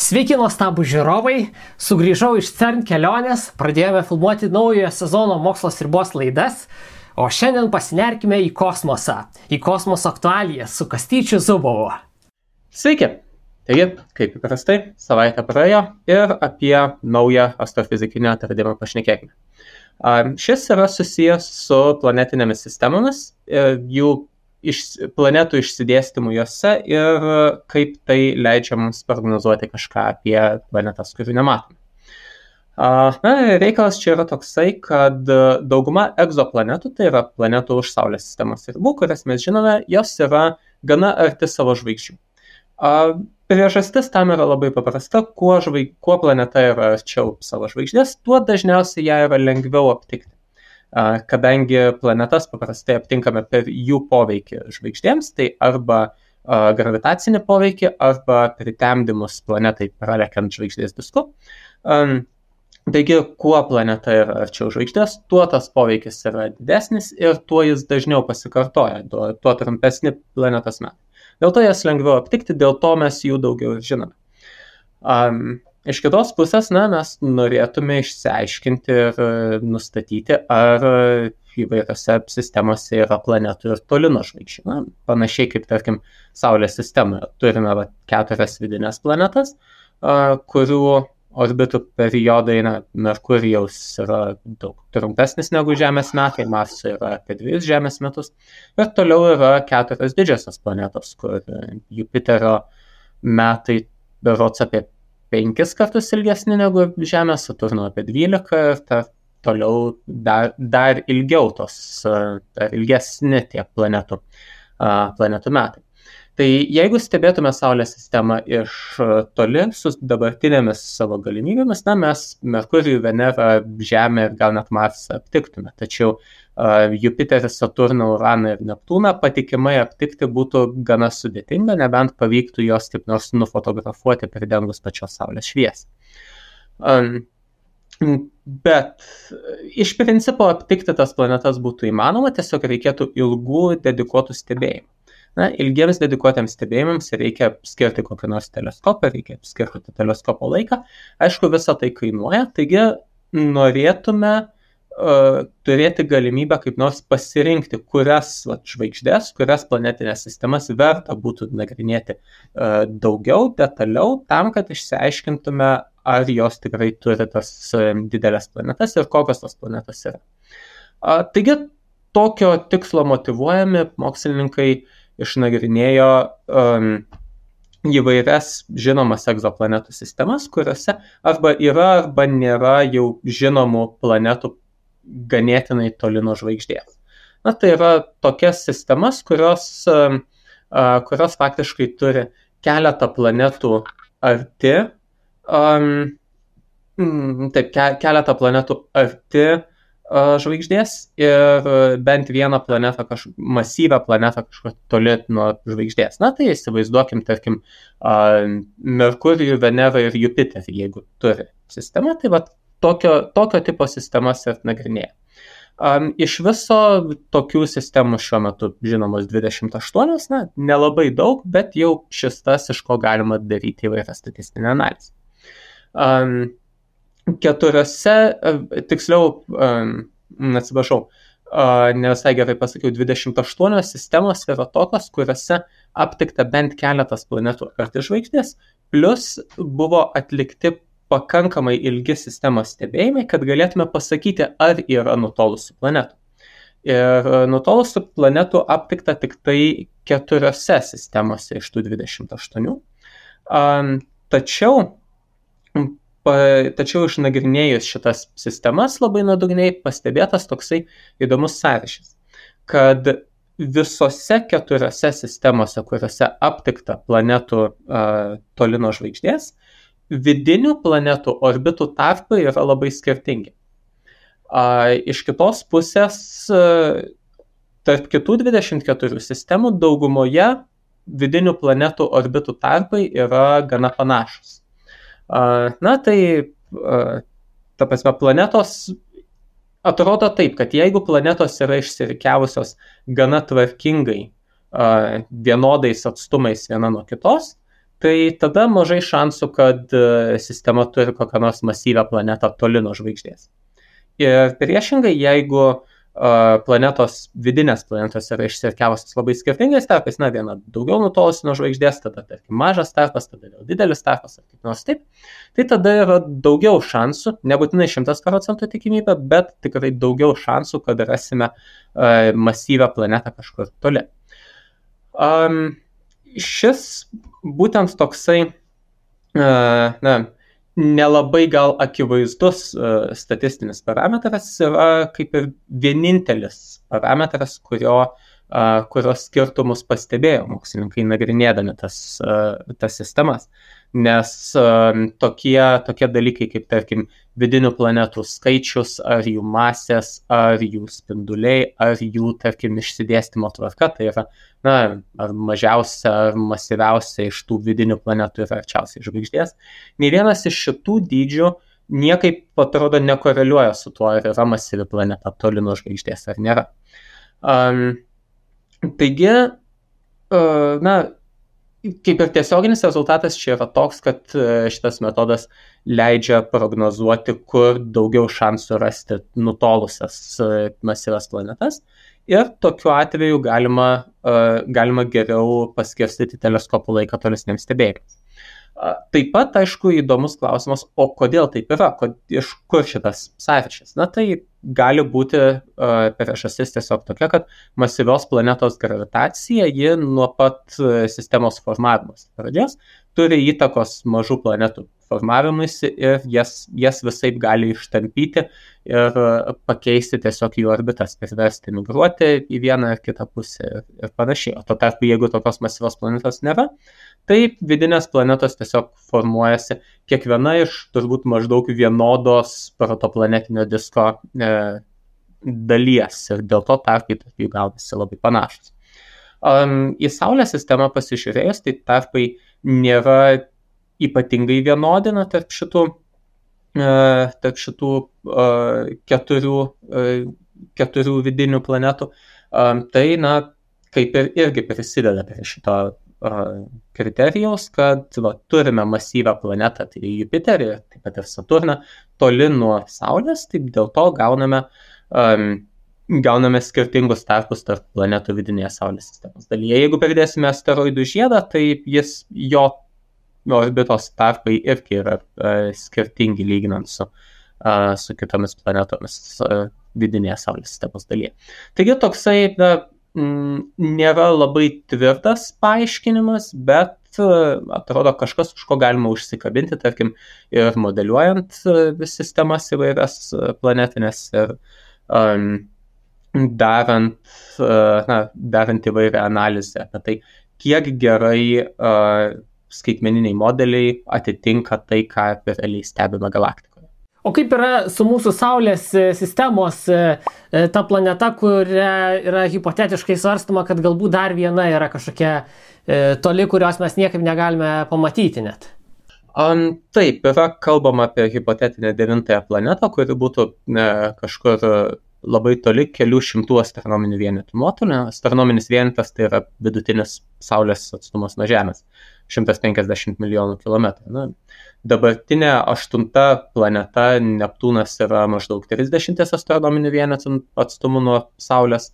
Sveiki nuostabų žiūrovai, sugrįžau iš CERN kelionės, pradėjome filmuoti naujojo sezono Mokslas ribos laidas, o šiandien pasinerkime į kosmosą, į kosmoso aktualijas su Kastyčiu Zubovu. Sveiki! Taigi, kaip įprastai, savaitę praėjo ir apie naują astrofizikinį atradimą pašnekėkime. Šis yra susijęs su planetinėmis sistemomis, jų planetų išsidėstymu juose ir kaip tai leidžia mums prognozuoti kažką apie planetas, kurių nematome. Reikalas čia yra toksai, kad dauguma egzoplanetų, tai yra planetų už Saulės sistemos ribų, kurias mes žinome, jos yra gana arti savo žvaigždžių. Priežastis tam yra labai paprasta, kuo planeta yra arčiau savo žvaigždės, tuo dažniausiai ją yra lengviau aptikti. Kadangi planetas paprastai aptinkame per jų poveikį žvaigždėms, tai arba gravitacinį poveikį, arba pritemdymus planetai pralekiant žvaigždės disku. Taigi, kuo planeta yra arčiau žvaigždės, tuo tas poveikis yra didesnis ir tuo jis dažniau pasikartoja, tuo trumpesni planetos metai. Dėl to jas lengviau aptikti, dėl to mes jų daugiau žinome. Iš kitos pusės, mes norėtume išsiaiškinti ir nustatyti, ar įvairiose sistemose yra planetų ir toli nuo žvaigždžių. Panašiai kaip, tarkim, Saulės sistemoje. Turime 4 vidinės planetas, kurių orbitų periodai, Merkurijaus yra daug trumpesnis negu Žemės metai, Marso yra apie 2 Žemės metus. Ir toliau yra 4 didžiosios planetos, kur Jupiterio metai berods apie 5 kartus ilgesni negu Žemė, Saturno apie 12 ir toliau dar ilgiau dar ilgesni tie planetų metai. Tai jeigu stebėtume Saulės sistemą iš toli su dabartinėmis savo galimybėmis, mes Merkurijų, Venerą, Žemę ir gal net Marsą aptiktume. Tačiau Jupiterį, Saturną, Uraną ir Neptūną patikimai aptikti būtų gana sudėtinga, nebent pavyktų jos taip nors nufotografuoti pridengus pačios Saulės šviesą. Bet iš principo aptikti tas planetas būtų įmanoma, tiesiog reikėtų ilgų dedikuotų stebėjimų. Ilgiems dedikuotiems stebėjimams reikia skirti kokį nors teleskopą, reikia skirti teleskopo laiką. Aišku, visą tai kainuoja, taigi norėtume turėti galimybę kaip nors pasirinkti, kurias žvaigždės, kurias planetinės sistemas verta būtų nagrinėti daugiau, detaliau, tam, kad išsiaiškintume, ar jos tikrai turi tas didelės planetas ir kokios tos planetos yra. Taigi, tokio tikslo motyvuojami mokslininkai išnagrinėjo įvairias žinomas egzoplanetų sistemas, kuriuose arba yra, arba nėra jau žinomų planetų ganėtinai toli nuo žvaigždės. Tai yra tokias sistemas, kurios faktiškai turi keletą planetų arti, keletą planetų arti žvaigždės ir bent vieną planetą, masyvę planetą kažkur toli nuo žvaigždės. Tai įsivaizduokim, tarkim, Merkurijų, Venerą ir Jupiterį, jeigu turi sistemą, tai tokio tipo sistemas ir nagrinėja. Iš viso tokių sistemų šiuo metu žinomos 28, nelabai daug, bet jau šis tas, iš ko galima daryti įvairią statistinę analizę. 4, tiksliau, ne visai gerai pasakiau, 28 sistemos yra tokios, kuriuose aptikta bent keletas planetų arti žvaigždės, plus buvo atlikti pakankamai ilgi sistemos stebėjimai, kad galėtume pasakyti, ar yra nutolusių planetų. Ir nutolusių planetų aptikta tik tai 4 sistemose iš tų 28. Tačiau išnagrinėjus šitas sistemas labai nuodugniai pastebėtas toksai įdomus sąryšis, kad visose 4 sistemose, kuriuose aptikta planetų toli nuo žvaigždės, vidinių planetų orbitų tarpai yra labai skirtingi. Iš kitos pusės, tarp kitų 24 sistemų daugumoje vidinių planetų orbitų tarpai yra gana panašus. Planetos atrodo taip, kad jeigu planetos yra išsirikiavusios gana tvarkingai vienodais atstumais viena nuo kitos, tai tada mažai šansų, kad sistema turi kokią nors masyvią planetą toli nuo žvaigždės. Ir priešingai, jeigu vidinės planetos yra išsirikiavusios labai skirtingais tarpais, viena daugiau nutolusi nuo žvaigždės, tada tarkim mažas tarpas, tada vėl didelis tarpas ar kaip nors taip, tai tada yra daugiau šansų, nebūtinai 100% tikimybė, bet tikrai daugiau šansų, kad rasime masyvią planetą kažkur toli. Šis būtent toksai nelabai gal akivaizdus statistinis parametras yra kaip ir vienintelis parametras, kurios skirtumus pastebėjo mokslininkai nagrinėdami tas sistemas. Nes tokie dalykai kaip, tarkim, vidinių planetų skaičius, ar jų masės, ar jų spinduliai, ar jų, tarkim, išsidėstymo tvarka, tai yra, ar mažiausia, ar masyviausia iš tų vidinių planetų yra arčiausiai žvaigždės. Nei vienas iš šitų dydžių niekaip, atrodo, nekoreliuoja su tuo, ar yra masyvi planeta toli nuo žvaigždės, ar nėra. Taigi, kaip ir tiesioginis rezultatas čia yra toks, kad šitas metodas leidžia prognozuoti, kur daugiau šansų rasti nutolusias masyvias planetas, ir tokiu atveju galima geriau paskirstyti teleskopų laiką tolesniems stebėjimams. Taip pat, aišku, įdomus klausimas, o kodėl taip yra, iš kur šitas sąryšis? Tai gali būti priežastis tiesiog tokia, kad masyvios planetos gravitacija, ji nuo pat sistemos formavimos pradžios turi įtakos mažų planetų formavimuisi ir jas visaip gali ištampyti ir pakeisti tiesiog jų orbitas, priversti migruoti į vieną ar kitą pusę ir panašiai. O tuo tarpu, jeigu tokios masyvios planetos nėra, tai vidinės planetos tiesiog formuojasi kiekviena iš turbūt maždaug vienodos protoplanetinio disko dalies ir dėl to tarpai tarp jų gaunasi labai panašus. Į Saulės sistemą pasižiūrėjus, tai tarpai nėra ypatingai vienodina tarp šitų keturių vidinių planetų. Tai, kaip ir irgi prisideda prie šito kriterijaus, kad turime masyvią planetą, tai Jupiterį, taip pat ir Saturną, toli nuo Saulės, taip dėl to gauname skirtingus tarpus tarp planetų vidinėje Saulės sistemos dalyje. Jeigu pridėsime asteroidų žiedą, tai jo orbitos tarpai irgi yra skirtingi lyginant su kitomis planetomis vidinėje Saulės sistemos dalyje. Taigi toksai nėra labai tvirtas paaiškinimas, bet atrodo kažkas, už ko galima užsikabinti, tarkim, ir modeliuojant sistemas įvairias planetinės ir darant įvairią analizę apie tai, kiek gerai skaitmeniniai modeliai atitinka tai, ką realiai stebime galaktikoje. O kaip yra su mūsų Saulės sistemos ta planeta, kuria yra hipotetiškai svarstama, kad galbūt dar viena yra kažkokia toli, kurios mes niekaip negalime pamatyti net? Taip, yra kalbama apie hipotetinę 9-ąją planetą, kuri būtų kažkur labai toli, kelių šimtų astronominių vienetų nuotolio. Astronominis vienetas tai yra vidutinis Saulės atstumas nuo Žemės. 150 milijonų kilometrų. Dabartinė 8 planeta Neptūnas yra maždaug 30 astronominių vienetų atstumu nuo Saulės.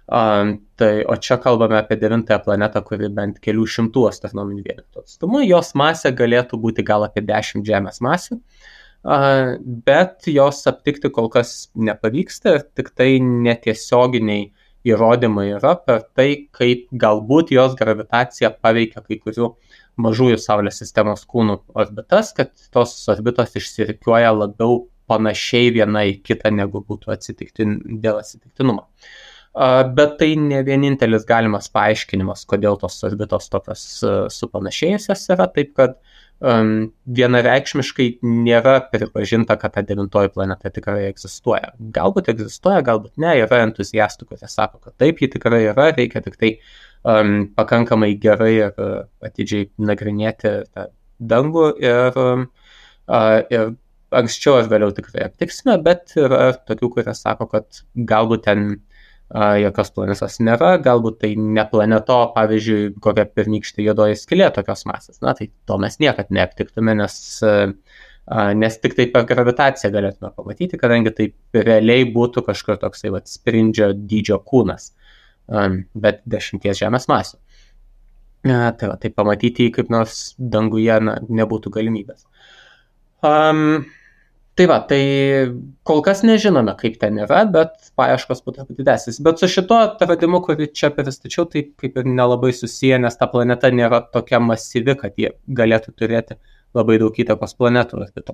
O čia kalbame apie 9-ąją planetą, kuri bent kelių šimtų astronominių vienetų atstumu. Jos masė galėtų būti gal apie 10 Žemės masių, bet jos aptikti kol kas nepavyksta ir tik tai netiesioginiai įrodymai yra per tai, kaip galbūt jos gravitacija paveikia kai kurių mažųjų Saulės sistemos kūnų orbitas, kad tos orbitos išsirikiuoja labiau panašiai viena į kitą, negu būtų dėl atsitiktinumo. Bet tai ne vienintelis galimas paaiškinimas, kodėl tos orbitos tokios supanašėjusios yra, taip kad vienareikšmiškai nėra pripažinta, kad ta 9-oji planeta tikrai egzistuoja. Galbūt egzistuoja, galbūt ne, yra entuziastų, kurie sako, kad taip, ji tikrai yra, reikia tik tai pakankamai gerai ir atidžiai nagrinėti tą dangų ir anksčiau ar vėliau tikrai aptiksime, bet yra tokių, kurie sako, kad galbūt ten jokios planetos nėra, galbūt tai ne planeto, pavyzdžiui, kokia pirmykštė juodoji skylė tokios masės. Na, tai to mes niekad neaptiktume, nes tik tai per gravitaciją galėtume pamatyti, kadangi tai realiai būtų kažkur toksai sprindžio dydžio kūnas, bet 10 Žemės masių. Tai pamatyti jį kaip nors danguje nebūtų galimybės. Tai kol kas nežinome, kaip ten yra, bet paieškos būtų didesnis. Bet su šito atradimu, kurį čia pristačiau, tai kaip ir nelabai susiję, nes ta planeta nėra tokia masyvi, kad jie galėtų turėti labai daug įtakos planetų orbitų.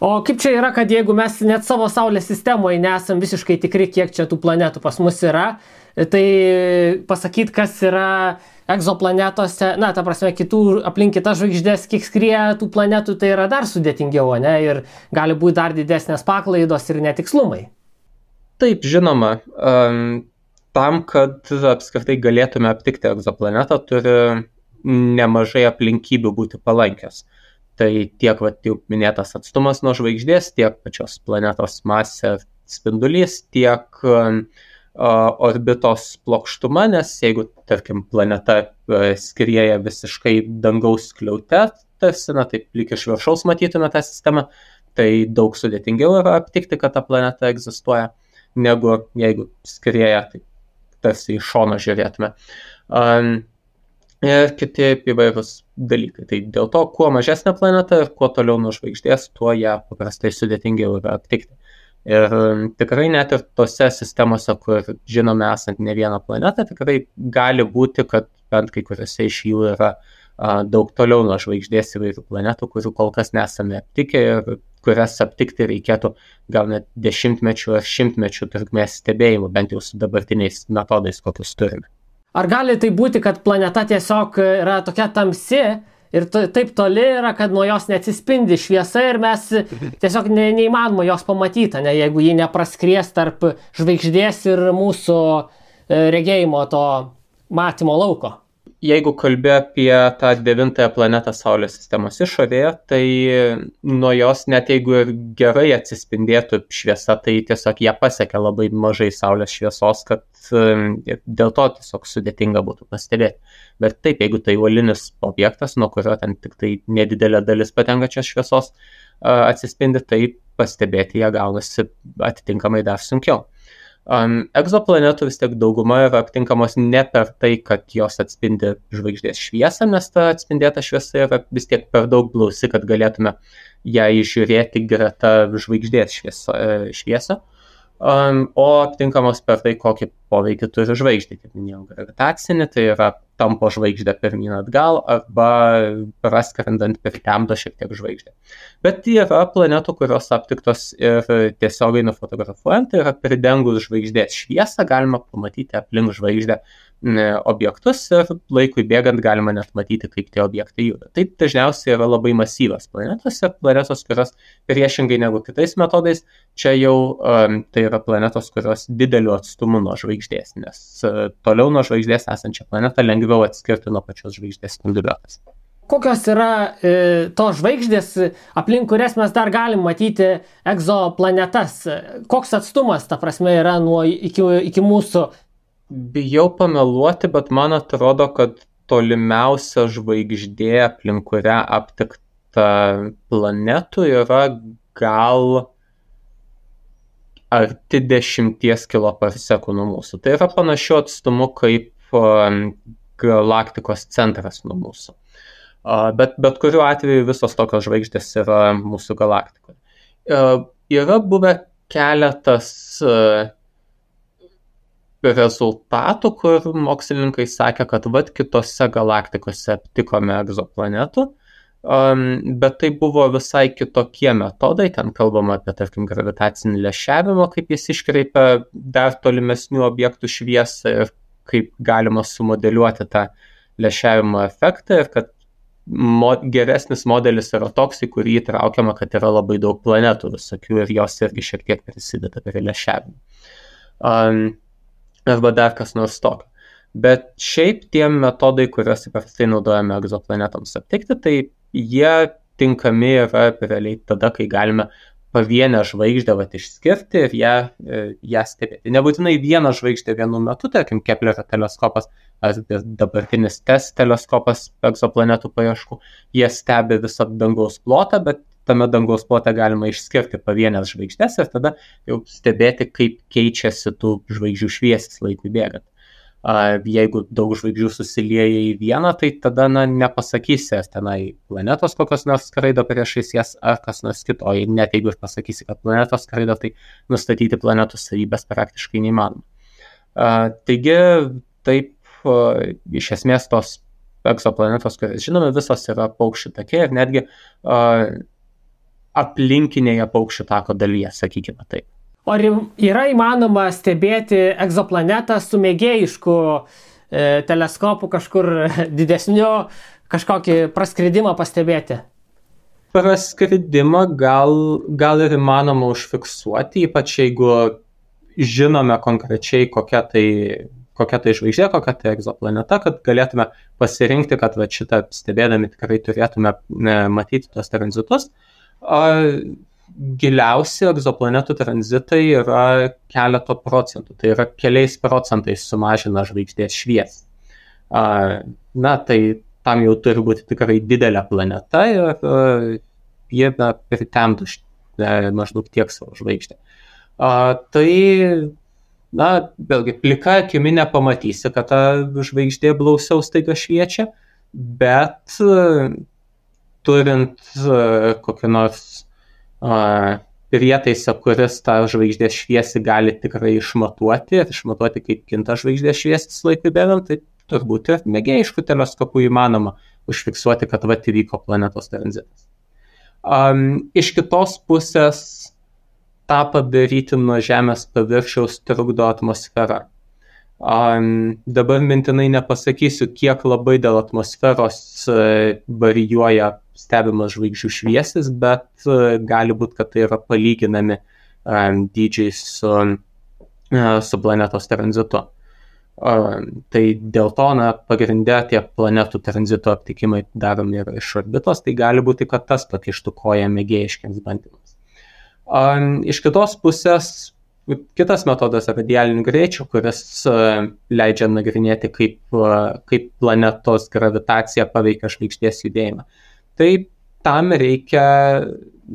O kaip čia yra, kad jeigu mes net savo Saulės sistemoje nesam visiškai tikri, kiek čia tų planetų pas mus yra, tai pasakyti, kas yra egzoplanetose, ta prasme, aplink kitas žvaigždės, kiek skrieja tų planetų, tai yra dar sudėtingiau, ne? Ir gali būti dar didesnės paklaidos ir netikslumai. Taip, žinoma, tam, kad apskritai galėtume aptikti egzoplanetą, turi nemažai aplinkybių būti palankios. Tai tiek jau minėtas atstumas nuo žvaigždės, tiek pačios planetos masė spindulys, tiek orbitos plokštuma, nes jeigu, tarkim, planeta skrieja visiškai dangaus skliaute, tarsi, taip lyg iš viršaus matytume tą sistemą, tai daug sudėtingiau yra aptikti, kad ta planeta egzistuoja, negu jeigu skrieja, tai tarsi iš šono žiūrėtume. Ir kiti įvairūs dalykai. Tai dėl to, kuo mažesnė planeta ir kuo toliau nuo žvaigždės, tuo ją paprastai sudėtingiau yra aptikti. Ir tikrai net ir tose sistemose, kur žinome esant ne vieną planetą, tikrai gali būti, kad bent kai kuriuose iš jų yra daug toliau nuo žvaigždės įvairių planetų, kurių kol kas nesame aptikę ir kurias aptikti reikėtų gal net 10-mečių ar 100-mečių trukmės stebėjimų, bent jau su dabartiniais metodais, kokius turime. Ar gali tai būti, kad planeta tiesiog yra tokia tamsi ir taip toli yra, kad nuo jos neatsispindi šviesa ir mes tiesiog neįmanoma jos pamatyti, jeigu ji nepraskries tarp žvaigždės ir mūsų regėjimo to matymo lauko? Jeigu kalbė apie tą 9-ąją planetą Saulės sistemos išorėje, tai nuo jos net jeigu ir gerai atsispindėtų šviesa, tai tiesiog ją pasiekia labai mažai Saulės šviesos, kad dėl to tiesiog sudėtinga būtų pastebėti. Bet taip, jeigu tai uolinis objektas, nuo kurio ten tik tai nedidelė dalis patenkačios šviesos atsispindi, tai pastebėti ją gaunasi atitinkamai dar sunkiau. Egzoplanetų vis tiek dauguma yra aptinkamos ne per tai, kad jos atspindi žvaigždės šviesą, nes ta atspindėta šviesa yra vis tiek per daug blausi, kad galėtume ją įžiūrėti greta žvaigždės šviesą, o aptinkamos per tai, kokį poveikį turi žvaigždė, kaip minėjau, gravitacinį, tai yra tampo žvaigždę pirmyn atgal arba praskrendant pritemdo šiek tiek žvaigždę. Bet yra planetų, kurios aptiktos ir tiesiogiai nufotografuojant, tai yra pridengus žvaigždės šviesą, galima pamatyti aplink žvaigždę objektus ir laikui bėgant galima net matyti, kaip tie objektai juda. Tai dažniausiai yra labai masyvios planetos ir planetos, kurios priešingai negu kitais metodais, čia jau tai yra planetos, kurios dideliu atstumu nuo žvaigždės, nes toliau nuo žvaigždės esančią planetą lengviau atskirti nuo pačios žvaigždės spinduliuotės. Kokios yra tos žvaigždės, aplink kurias mes dar galim matyti egzoplanetas? Koks atstumas, ta prasme, yra iki mūsų? Bijau pameluoti, bet man atrodo, kad tolimiausia žvaigždė, aplink kurią aptikta planetų, yra gal arti 10 km/s nuo mūsų. Tai yra panašiu atstumu kaip galaktikos centras nuo mūsų. Bet kuriuo atveju visos tokios žvaigždės yra mūsų galaktikoje. Yra buvę keletas rezultatų, kur mokslininkai sakė, kad kitose galaktikose aptikome egzoplanetų, bet tai buvo visai kitokie metodai, ten kalbama apie, tarkim, gravitacinį lęšiavimą, kaip jis iškreipia dar tolimesnių objektų šviesą ir kaip galima sumodeliuoti tą lęšiavimo efektą ir kad geresnis modelis yra toks, į kurį įtraukiama, kad yra labai daug planetų visokių ir jos irgi šiek tiek prisideda prie lęšiavimo. Arba dar kas nors tokio. Bet šiaip tie metodai, kuriuos įprastai naudojame egzoplanetoms aptikti, tai jie tinkami yra realiai tada, kai galime pavienę žvaigždę išskirti ir ją stebėti. Nebūtinai vieną žvaigždę vienu metu, tarkim, Keplerio teleskopas ar dabartinis TESS teleskopas egzoplanetų paieškų, jie stebi visą dangaus plotą, bet tame dangaus plote galima išskirti pavienės žvaigždės ir tada jau stebėti, kaip keičiasi tų žvaigždžių šviesis laikui bėgant. Jeigu daug žvaigždžių susilieja į vieną, tai tada nepasakysi, ar tenai planetos kokios nors skraido priešais jas, ar kas nors kito. O net jeigu ir pasakysi, kad planetos skraido, tai nustatyti planetų savybės praktiškai neįmanoma. Taigi, taip, iš esmės tos egzoplanetos, kurias žinome, visos yra paukščių take ir netgi aplinkinėje paukščių tako dalyje, sakykime taip. O ar yra įmanoma stebėti egzoplanetą su mėgėjišku teleskopu kažkur didesniu, kažkokį praskridimą pastebėti? Praskridimą gal ir įmanoma užfiksuoti, ypač jeigu žinome konkrečiai kokia tai žvaigždė, kokia tai egzoplaneta, kad galėtume pasirinkti, kad šitą stebėdami tikrai turėtume matyti tos tranzitus. Giliausi egzoplanetų tranzitai yra keleto procentų, tai yra keliais procentais sumažina žvaigždės šviesą. Tai tam jau turi būti tikrai didelė planeta ir jie pritemtų maždaug tiek savo žvaigždę. Vėlgi, plika akimi nepamatysi, kad ta žvaigždė blausiau staiga šviečia, bet turint kokį nors prietaisą, kuris tą žvaigždės šviesį gali tikrai išmatuoti, kaip kinta žvaigždės šviesis laikui bėgant, tai turbūt ir mėgėjiškų teleskopų įmanoma užfiksuoti, kad įvyko planetos tranzitas. Iš kitos pusės tą padaryti nuo Žemės paviršiaus trukdo atmosfera. Dabar mintinai nepasakysiu, kiek labai dėl atmosferos varijuoja stebimas žvaigždžių šviesis, bet gali būti, kad tai yra palyginami dydžiai su planetos tranzitu. Tai dėl to pagrinde tie planetų tranzito aptikimai daromi yra iš orbitos, tai gali būti, kad tas pakištų koją mėgėjiškiams bandymams. Iš kitos pusės, kitas metodas radialinių greičių, kuris leidžia nagrinėti, kaip planetos gravitacija paveikia žvaigždės judėjimą. Tai tam reikia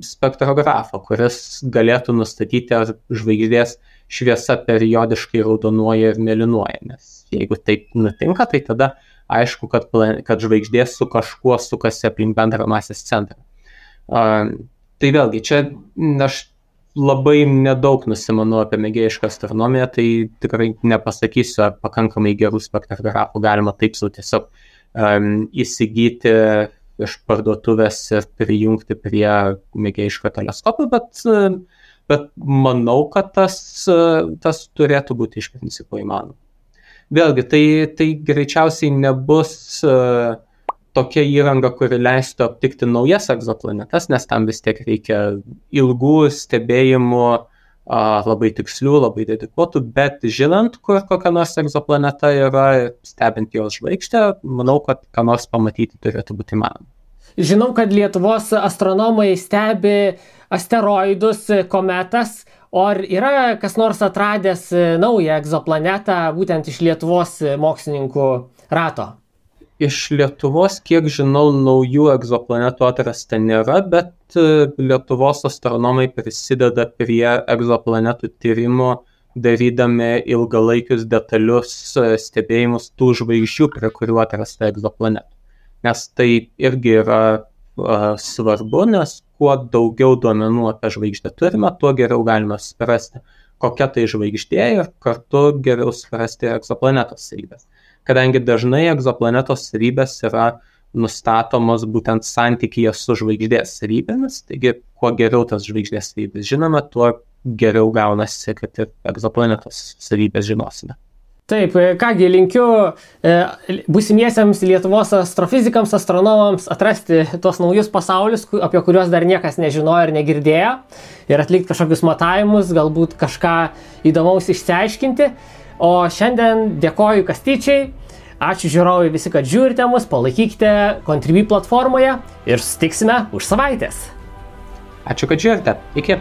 spektrografo, kuris galėtų nustatyti, ar žvaigždės šviesa periodiškai raudonuoja ir mėlynuoja. Nes jeigu taip nutinka, tai tada aišku, kad žvaigždė su kažkuo sukasi aplink bendrą masės centrą. Tai vėlgi, čia aš labai nedaug nusimanau apie mėgėjišką astronomiją, tai tikrai nepasakysiu, ar pakankamai gerų spektrografų galima taip sau tiesiog įsigyti iš parduotuvės ir prijungti prie mėgėjiško teleskopo, bet manau, kad tas turėtų būti iš principo įmanoma. Vėlgi, tai greičiausiai nebus tokia įranga, kuri leistų aptikti naujas egzoplanetas, nes tam vis tiek reikia ilgų stebėjimų, labai tikslių, labai dedikuotų, bet žinant, kur kokia nors egzoplaneta yra, stebint jos žvaigždę, manau, kad ką nors pamatyti turėtų būti įmanoma. Žinau, kad Lietuvos astronomai stebi asteroidus, kometas, o ar yra kas nors atradęs naują egzoplanetą būtent iš Lietuvos mokslininkų rato? Iš Lietuvos, kiek žinau, naujų egzoplanetų atrasta nėra, bet Lietuvos astronomai prisideda prie egzoplanetų tyrimo, darydami ilgalaikius detalius stebėjimus tų žvaigždžių, prie kurių atrasta egzoplanetų. Nes tai irgi yra svarbu, nes kuo daugiau duomenų apie žvaigždę turime, tuo geriau galime suprasti, kokia tai žvaigždė ir kartu geriau suprasti egzoplanetos savybės. Kadangi dažnai egzoplanetos savybės yra nustatomos būtent santykyje su žvaigždės savybėmis, taigi kuo geriau tas žvaigždės savybės žinome, tuo geriau gaunasi, kad ir egzoplanetos savybės žinosime. Taip, kągi, linkiu būsimiesiems Lietuvos astrofizikams, astronomams atrasti tuos naujus pasaulius, apie kuriuos dar niekas nežinojo ir negirdėjo, ir atlikti kažkokius matavimus, galbūt kažką įdomaus išsiaiškinti. O šiandien dėkoju Kastyčiai, ačiū žiūrovai visi, kad žiūrite mus, palaikykite Contribui platformoje ir susitiksime už savaitės. Ačiū, kad žiūrite. Iki.